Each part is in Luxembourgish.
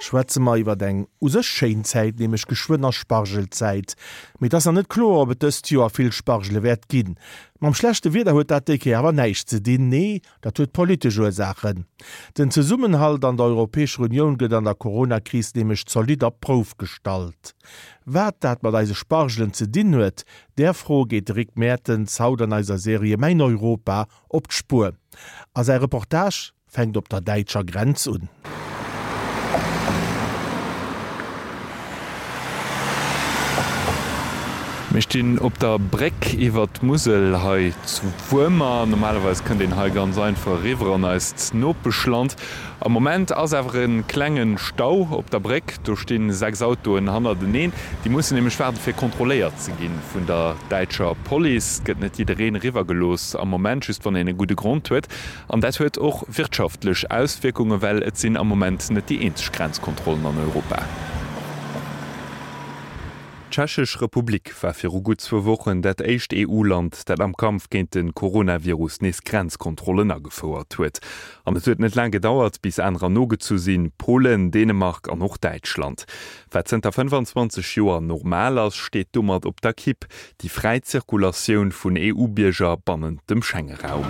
Schwätze mer iwwert eng u sech schéin Zäit, nämlech geschwënn ass Spargelzäit. Mee et ass nach net kloer, ob et dëst Joer vill Spargele wäert ginn. Mam schlechte Wieder huet dat déi Kéier awer näischt ze dinn, nee, dat huet politesch Ursaachen. Den Zesummenhalt an der Europäescher Unioun gëtt an der Corona-Kris nämlech zolidd op d'Prouf gestallt. Wat dat mat eise Spargelen ze dinn huet, där Fro geet de Rick Mertens haut an eiser Serie Mäin Europa op d'Spuer. A säi Reportage fänkt op der däitscher Grenz un. Mir stinn op der Bréck iwwer d'Musel hei zu Wuermer. Normalerweis kënnt een hei ganz einfach eriwwer an eist Nopeschland. Am Moment ass awer e klenge Stau op der Bréck. Do sti 6 Autoen hannerteneen. Déi mussen nämlech waarden, fir kontrolléiert ze gi vun der däitscher Police. Et gëtt net jiddereen eriwwer gelooss am Moment, just wann een e gudde Grond huet. An dat huet och wirtschaftlech Auswierkungen, well et sinn am Moment net déi eenzeg Grenzkontrollen an Europa. D'Tschechesch Republik war viru gutt zwou Wochen dat éischt EU-Land, dat am Kampf géint de Coronavirus nees Grenzkontrollen agefouert huet. An et huet net laang gedauert, bis anerer nogezu sinn, Polen, Dänemark an och Däitschland. Wat zënter 25 Joer normal ass, steet domat op der Kipp, déi fräi Zirkulatioun vun EU-Bierger bannent dem Schengeraum.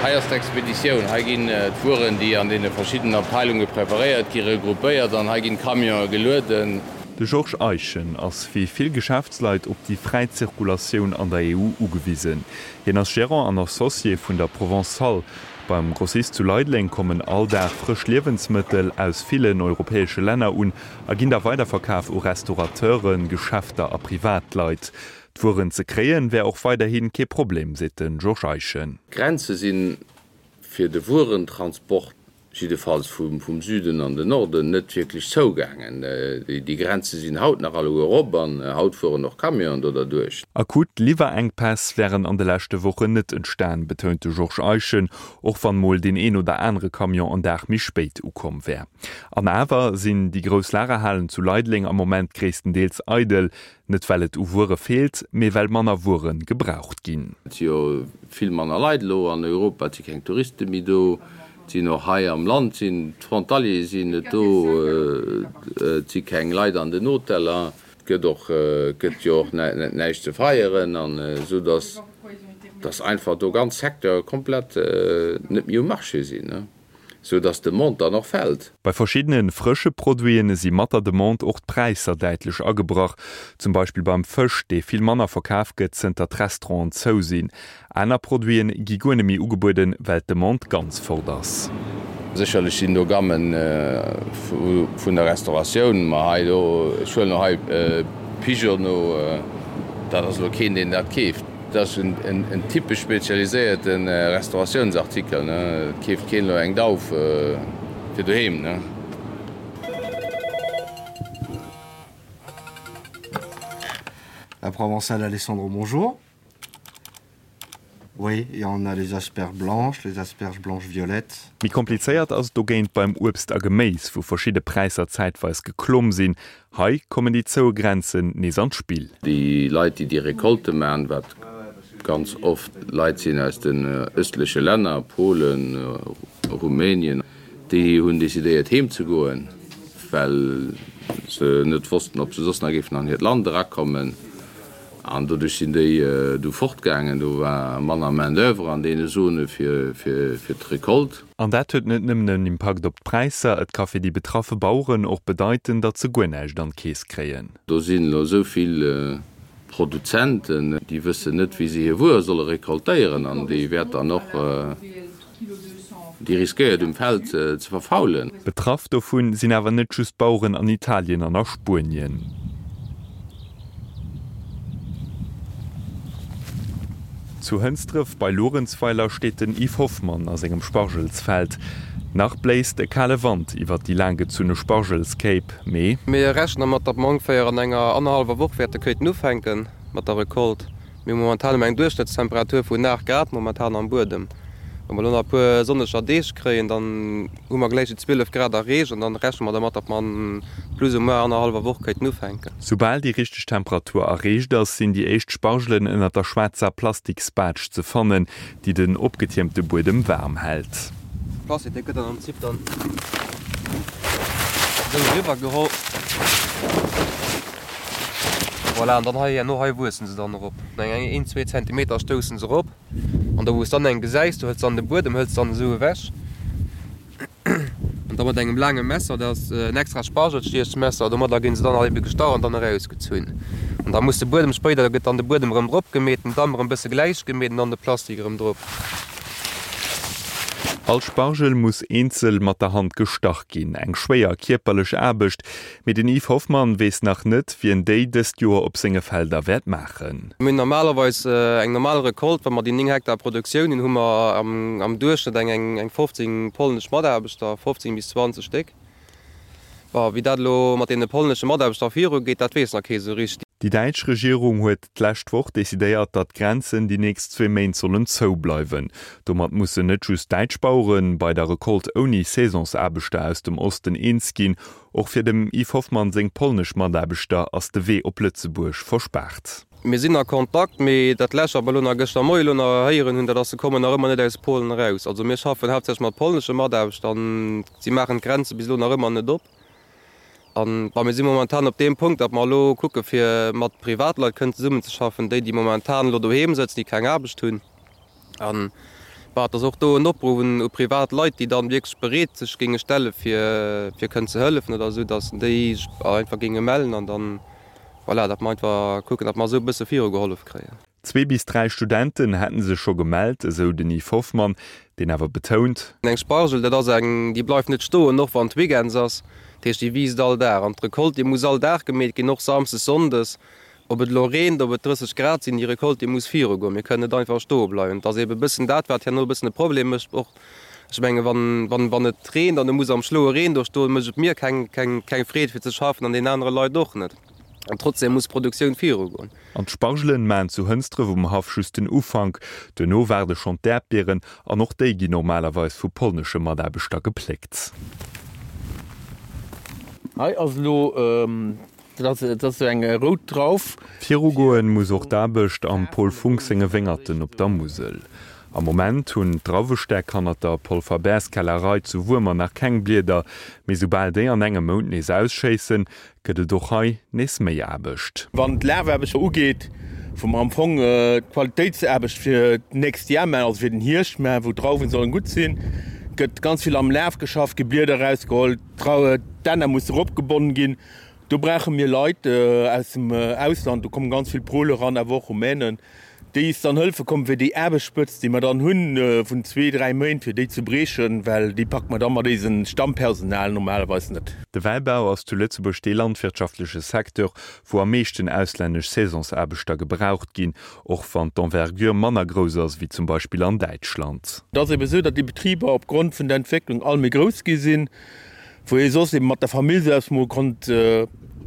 Hei ass d'Expeditioun. Hei ginn d'Wueren, déi an deene verschiddenen Abteilunge preparéiert gi, regroupéiert an hei ginn d'Camionë gelueden. De Georges Eischen ass wéi vill Geschäftsleit op déi fräi Zirkulatioun an der EU ugewisen. Hien ass Gerant an Associé vun der Provençale. Beim Grossist zu Leideleng kommen all Dag frësch Liewensmëttel aus villen europäesche Länner un a ginn da weiderverkaf u Restaurateuren, Geschäfter a Privatleit. D'Wueren ze kréien, wär och weiderhi kee Problem, seet de Georges Eischen. D'Grenze si fir de Wuerentransport, jiddefalls vum Süden an den Norden, net wierklech zougaangen. Déi Grenze sinn haut nach alleguer op an haut fueren och Camionen do derduerch. Akut Liwwerenkpäss wären an de leschte Wochen net entstan, betount de Georges Eischen, och wann mol deen een oder anere Camion en Dag méi spéit ukomm wär. An awer sinn déi grouss Lagerhalen zu Leideleng am Moment gréisstendeels eidel. Net well et u Wuere feelt, mee well manner Wuere gebraucht ginn. Et si jo vill manner Leit elo an Europa, et si keng Touriste méi do, et sinn och hei am Land sinn d'Frontaliere sinn net do, et si keng Leit an den Hoteller, et gëtt och gëtt jo och näischt ze feieren an esou datt datt einfach do ganz Secteure komplett net méi um Marché sinn. sou dass d'Demande dann och fält. Bei verschiddene frësche Produiten si mat der Demande och d'Präisser däitlech agebrach. Zum Beispill beim Fësch, dee vill manner verkaf gëtt, zënter d'Restauranten zou sinn. Aner Produiten gi guer net méi ugebueden, well d'Demande ganz fort ass. Sécherlech sinn do Gammen vun der Restauratioun, ma hei do, ech huelen elo hei Pigeon, dat ass elo keen, deen dat keeft. Dat ass en typesch spezialiséierte Restauratiounsartikel, ne? Et keeft keen elo eng Dauf fir doheem, ne? La Provençale Alessandro, bonjour. Oui, et on a les asperges blanches, les asperges blanches violettes. Méi komplizéiert ass et dogéint beim Uebst a Geméis, wou verschidde Präisser zäitweis geklomm sinn. Hei kommen déi zoue Grenzen nees an d'Spill. Déi Leit, déi déi Recolte maachen, wat ganz oft Leit sinn aus den ëstleche Länner, Polen, Rumänien, déi hunn decidéiert heem ze goen, well se net wossten, ob se soss nach géifen an hiert Land erakommen. An doduerch sinn déi du fortgaangen. Do war manner Main d'oeuvre an deene Zone fir d'Recolte. An dat huet net nëmmen en Impakt op d'Präisser, et ka fir déi betraffe Baueren och bedeiten, datt se guer näischt an d'Keess kréien. Do sinn elo esou vill Produzenten, déi wëssen net, wéi se hir Wuer solle recoltéieren an déi wäert dann och. Déi riskéiert um Feld ze verfaulen. Betraff dovun sinn awer net just d'Baueren an Italien an a Spuenien. Zu Hënsdref bei Luerenzweiler steet den Yves Hoffmann a sengem Spargelsfeld. Nach bléist e kale Wand iwwer déi laanggezunne Spargelskéip, mee. Mir rechnen dermat, datt mer ongeféier an enger annerhallwer Woch wäerte kéinten ufänke mat der Recolte. Mir hu momentan ëm eng Duerchschnëttstemperatur vun 8 Grad momentan am Buedem. Wa mer elo nach e puer sonneger Deeg kréien, dann hu mer gläich déi 12 Grad erreecht an dann rechne mer dermat, datt mer an plus ou moins annerhallwer Woch kéinten ufänken. Soubal déi richteg Temperatur erreecht ass, sinn déi éischt Spargelen ënnert der schwaarzer Plastiksbaatsch ze fannen, déi den opgetiermte Buedem waarm hält. De Plastik dee gëtt dann am Prinzip dann esou eriwwer geholl. Voilà, an dann hei herno hei wuessen se dann erop. Eng een, zwee Zentimeter stoussen se erop. An do wou s dann eng gesäis, do hëls dann de Buedem hëls dann esou ewech. An da mat engem laange Messer, dat ass en extra Spargelstiechmesser, domadder ginn se dann all ebe gestach an dann erausgezunn. An da muss de Buedem spéider, da gëtt dann de Buedem erëm drop gemeet, den Damm erëm e bësse gläich gemeet an dann de Plastik erëm drop. All Spargel muss eenzel mat der Hand gestach ginn. Eng schwéier kierperlech Aarbecht, mee den Yves Hoffmann weess nach net, wien déi dëst Joer op senge Felder wäert maachen. Mir hunn normalerweis eng normal Recolte, wa mer déi 9 Hektar Produktioun hunn, hu mer am Duerchschnëtt eng 15 polnesch Mataarbechter, 15 bis 20 Stéck. Bon, wéi dat elo mat deene polnesche Mataarbechter virugeet, dat weess nach kee sou richteg. Déi däitsch Regierung huet d'lescht Woch decidéiert, datt d'Grenzen déi nächst zwee Méint sollen zou bleiwen. Domat mussen net just däitsch Bauere bei der Recolte ouni Saisonsaarbechter aus dem Osten eens ginn. Och fir dem Yves Hoffmann seng polnesch Mataarbechter ass de Wee op Lëtzebuerg verspaart. Mir sinn a Kontakt, mee dat lescht wat mer elo nach gëschter Moie elo nach héieren hunn, dat ass, se kommen nach ëmmer net aus Polen eraus. Also mir schaffen haaptsächlech mat polnesche Mataarbechter an si maachen d'Grenze bis elo nach ëmmer net op. An bon, mir si momentan op deem Punkt, datt mer elo kucke fir mat Privatleit kënnen zesummenzeschaffen, déi déi momentan elo doheem sëtzen, déi keng Aarbecht hunn. An bah, et ass och do en Opruff un u privat Leit, déi dann wierklech bereet sech géinge stelle fir fir kënnen ze hëllefen oder esou, datt déi sech einfach géinge mellen an dann, voilà, datt mer einfach kucken, datt mer esou e bësse virugehollef kréien. Zwee bis dräi Studenten hätte sech scho gemellt, esou den Yves Hoffmann, deen awer betount. Eng Spargel, dat ass eng, déi bleift net stoen, och wann et Weekends ass. Dat heescht, déi wiisst all Dag. An d'Recolte, déi muss all Dag gemeet ginn, och samsdes, sonndes. Ob et elo reent, ob et 30 Grad sinn, déi Recolte, déi muss virugoen. Mir kënnen net einfach stoe bleiwen. Et ass eebe e bëssen dat, wat herno e bëssen e Problem mécht. Och, ech menge wann, wann, wann et reent an e muss am schloue Reen do stoen, mécht et mir keng, keng, keng Freed fir ze schaffen an deenen anere Leit och net. An trotzdem muss d'Produktioun virugoen. An d'Spargelen maachen zu Hënsdref um Haff just den Ufank. Duerno waarde schonn d'Äerdbieren an och déi ginn normalerweis vu polnesche Mataarbechter gepléckt. Hei ass elo Dat ass esou eng rout Drauf. Virugoen muss och d'Aarbecht am Paul Funck senge Wéngerten op der Musel. Am Moment hunn d'Drauwestäck hannert der Paul Faber's Kellerei zu Wuermer nach keng Blieder, mee soubal déi an engem Mount nees ausschéissen, gëtt et och hei nees méi Aarbecht. Wann d'Lafaarbecht ugeet, wou mer am Fong d'Qualitéitsaarbecht fir d'nächst Jar maachen, also fir den Hierscht maachen, wou d'Drauwen sollen gutt sinn, gëtt ganz vill am Laf geschafft, gi Blieder erausgeholl, d'Enner muss eropgebonnen ginn. Do brauche mir Leit aus dem Ausland, do kommen ganz vill Pole eran, awer och Rumänen, déi is dann hëlfe kommen, fir déi Aarbechtsspëtzt, déi mer dann hunn vun zwee, dräi Méint, fir déi ze briechen, well déi packe mer da mat eisem Stammpersonal normalerweis net. De Wäibau ass zu Lëtzebuerg dee landwirtschaftleche Secteur, wou am meeschten auslännesch Saisonsaarbechter gebraucht ginn, och wann d'Envergure manner grouss ass wéi zum Beispill an Däitschland. Et ass ebe sou, datt déi Betriber opgrond vun der Entwécklung all méi grouss gi sinn. Wou ee soss eben mat der Famill selbst mol konnt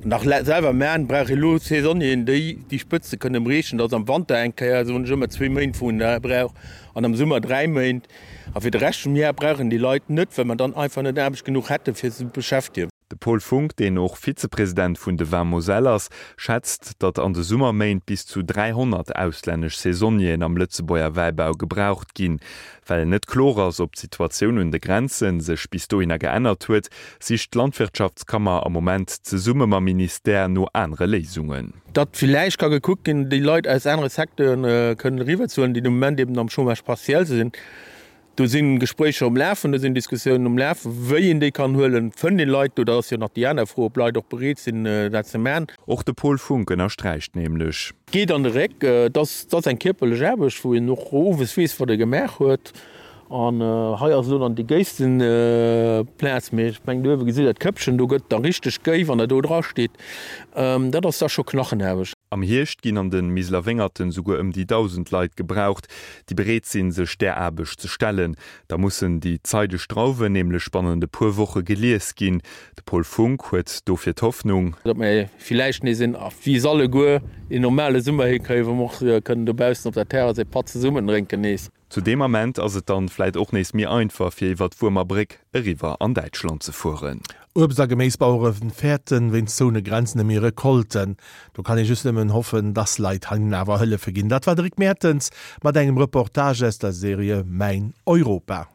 nach selwer man, brauch ee lo Saisonnieren, déi déi Spëtze kënne briechen. Dat ass am Wanter eng Kéier, soen ech ëmmer, zwee Méint wou een dat brauch an am Summer dräi Méint. A fir de Rescht vum Jar brauch een déi Leit net, well mer dann einfach net Aarbecht genuch hätte fir se beschäftegen. De Paul Funck, deen och Vizepresident vun de Vins Moselle ass, schätzt, datt an de Summerméint bis zu 300 auslännesch Saisonnieren am Lëtzebuerger Wäibau gebraucht ginn. Well net kloer ass, ob d'Situatioun un de Grenze sech bis dohinner geännert huet, sicht d'Landwirtschaftskammer am Moment zesumme mam Ministère no anere Léisungen. Datt villäicht ka gekuckt ginn, déi Leit aus anere Secteuren kënnen eriwwerzehuelen, déi de Moment eben am Chômage partiel sinn. Do si Gespréicher um Lafen, do sinn Diskussiounen um Lafen, wéi een déi kann huelen. Fënnt een Leit do? Dat ass jo nach déi aner Fro, ob Leit och bereet sinn, dat ze man. Och de Paul Funck ënnersträicht nämlech. Geet an de Réck. Et ass, et ass eng kierperlech Aarbecht, wou een och owes weess, wat e gemaach huet. An hei ass elo dann déi géisten Plaz, mee ech mengen, do uewe gesitt Der d'Këppchen, do gëtt da richteg géi, wann der do dra steet. Dat ass da scho Knachenaarbecht. Am Hierscht ginn an de Miseler Wéngerten souguer ëm déi 1.000 Leit gebraucht, déi bereet sinn, sech där Aarbecht ze stellen. Da mussen déi zeideg Drauwen nämlech bannent e puer Woche gelies ginn. De Paul Funck huet dofir d'Hoffnung. Datt mir villäicht nees een, wéi se alleguer, een normale Summer hikréien, wou mer och kënnen dobaussen op der Terrass ee Patt zesummen drénken nees. Zu deem Ament ass et dann vläit och nees méi einfach fir iwwer d'Wuermer Bréck eriwwer an Däitschland ze fueren. Uebst a Geméisbauere fäerten wéinst zoune Grenzen ëm hir Recolten. Do kann ee just nëmmen hoffen, dass Leit hinnen awer hëllefe ginn. Dat war de Rick Mertens mat engem Reportage aus der Serie Mäin Europa.